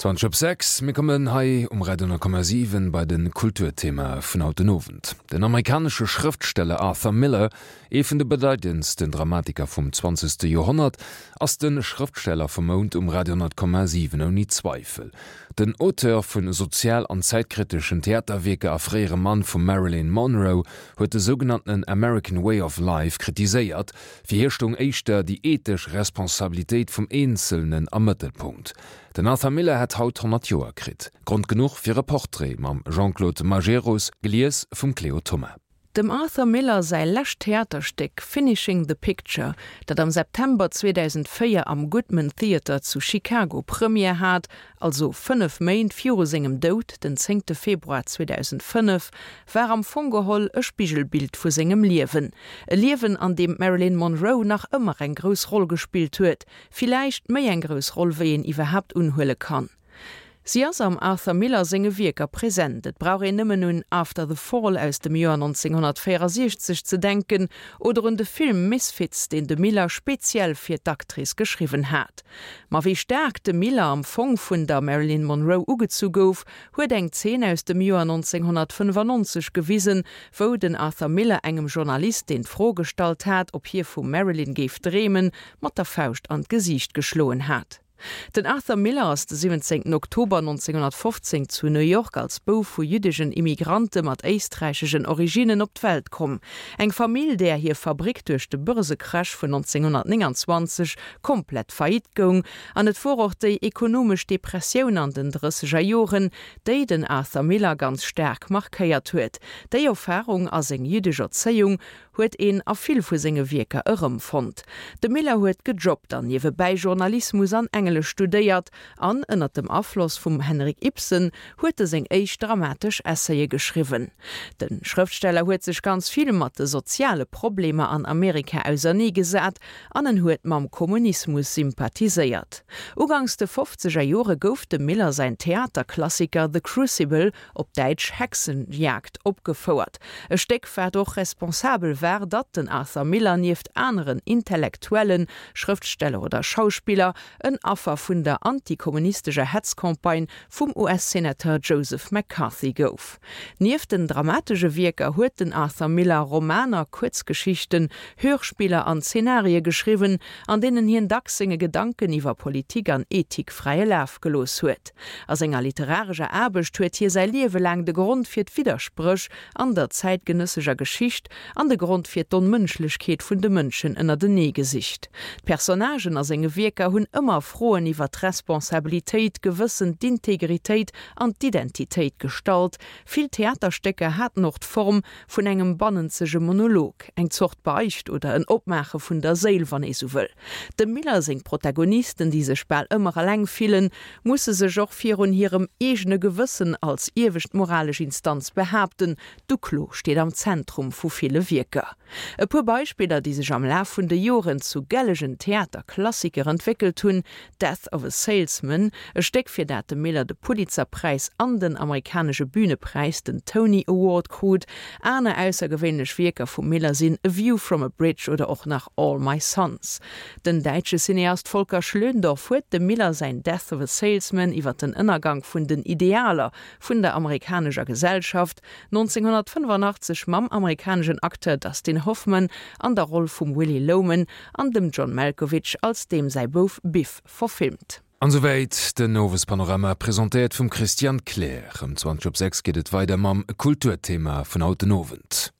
20 op 6, Mir kommen hei um Radio 10,7 bei de Kulturthema vun haut den Owend. Den amerikanesche Schrëftsteller Arthur Miller, ee vun de bedeitendsten Dramatiker vum zwanzegste Joerhonnert, ass de Schrëftsteller vum Mount um Radio 10,7 ouni Zweifel. Den Auteur vu sozial an zäitkriteschen Theaterwierker a fréiere Mann vum Marilyn Monroe huet de sougenanntenen American Way of Life kritiséiert, Fir hie stoung éischter déi ethesch Responsabilitéit vum Eenzelnen am Mëttelpunkt. Den Arthur Miller hätt haut 100 Joer kritt. Grond genuch fir e Portrait mam Jean-Claude Majerus, gelies vum Cléo Thoma. Dem Arthur Miller säi lescht Theaterstéck Finishing the Picture, dat am September 2004 am Goodman Theatre zu Chicago Première hat, also 5 Méint viru sengem Doud, den zéngte Februar 2005, war am Fong geholl e Spigelbild vu sengem Liewen. E Liewen, an deem d'Marilyn Monroe nach ëmmer eng grouss Roll gespillt huet, villäicht méi eng grouss Roll, wéi een iwwerhaapt unhuele kann. Si ass am Arthur Miller senge Wierker present, et brauch een nëmmen un After the Fall aus dem Joer 1964 ze denken oder un de Film Misfits, deen de Miller speziell fir d'Actrice geschriwwen hat. Ma wéi staark de Miller am Fong vun der Marilyn Monroe ugezu gouf, huet eng Zeen aus dem Joer 1995 gewisen, wou den Arthur Miller engem Journalist, deen d'Fro gestallt hat, ob hie vum Marilyn géif dreemen, mat der Fauscht an d'Gesiicht geschloen hat. Den Arthur Miller ass de 17 Oktober 1915 zu New York als Bouf vu jüddegen Immigrante mat éisträichegen Originnen op d'Welt komm. Eng Famill, där hir Fabrick duerch de Börsecrash vun 1929 komplett faillite goung. An et wor och déi ekonomesch Depressioun an den drësseger Joren, déi den Arthur Miller ganz staark markéiert huet. Déi Erfarung a seng jüddesch Erzéiung huet een a vill vu senge Wierker erëmfonnt. De Miller huet gejobbt an niewebäi Journalismus an Englesch studéiert an ënner dem Afloss vum Henrik Ibsen huet e seng éischt dramatesch Essaye geschriwwen. De Schrëftsteller huet sech ganz vill mat de soziale Problemer an Amerika auserneegesat an en huet mam Kommunismus sympathiséiert. Uganks de fofzeger Jore gouf dem Miller säin Theaterklassiker The Crucible op Däitsch Hexenjagd, opgefouert. E Stéck, wat och responsabel war, datt den Arthur Miller nieft aneren Intellektuellen, Schrëftsteller oder Schauspiller en Affer vun der antikommunistescher Hetzcampagne vum US-Senateur Joseph McCarthy gouf. Nieft den dramatesche Wierker huet den Arthur Miller Romaner, Kuerzgeschichten, Hörspiller an Zenarie geschriwwen, an deenen hien dacks senge Gedanken iwwer Politik an Ethik fräie Laf gelooss huet. A senger literarescher Aarbecht huet hie säi Liewe laang de Grond fir d'Widderspréch an der zäitgenësseger Geschicht an de Grond fir d'Onmënschlechkeet vun de Mënschen ënnertenee gesicht. D'Personnagen a senge Wierker hunn ëmmer Froen iwwer d'Responsabilitéit, d'Gewëssen, d'Integritéit an d'Identitéit gestallt. Vill Theaterstécker haten och d'Form vun engem bannenzege Monolog, eng Zort Beicht oder en Opmaache vun der Séil, wann ee sou wëll. Dem Miller seng Protagonisten, déi sech bal ëmmer eleng fillen, musse sech och virun hirem eegene Gewëssen als iewescht moralesch Instanz behaapten. D'Uklo steet am Zentrum vu ville Wierker. E puer Beispiller, déi sech am Laf vun de Joren zu gellegen Theaterklassiker entwéckelt hunn, Death of a Salesman, e Stéck fir dat de Miller de Pulitzer-Präis an den amerikanesche Bühnepräis, den Tony Award, krut. Aner aussergewéinlech Wierker vum Miller sinn A View from a Bridge oder och nach All My Sons. Den däitsche Cineast Volker Schlöndorff huet dem Miller säin Death of a Salesman iwwer den Ënnergank vun den Idealer vun der amerikanescher Gesellschaft 1985 mam amerikaneschen Acteur Dustin Hoffman an der Roll vum Willy Loman an dem John Malkovich als deem säi Bouf Biff verfilmt. An souwäit den Owespanorama, presentéiert vum Christian Kleer. Ëm 20 op 6 geet et weider mam Kulturthema vun haut den Owend.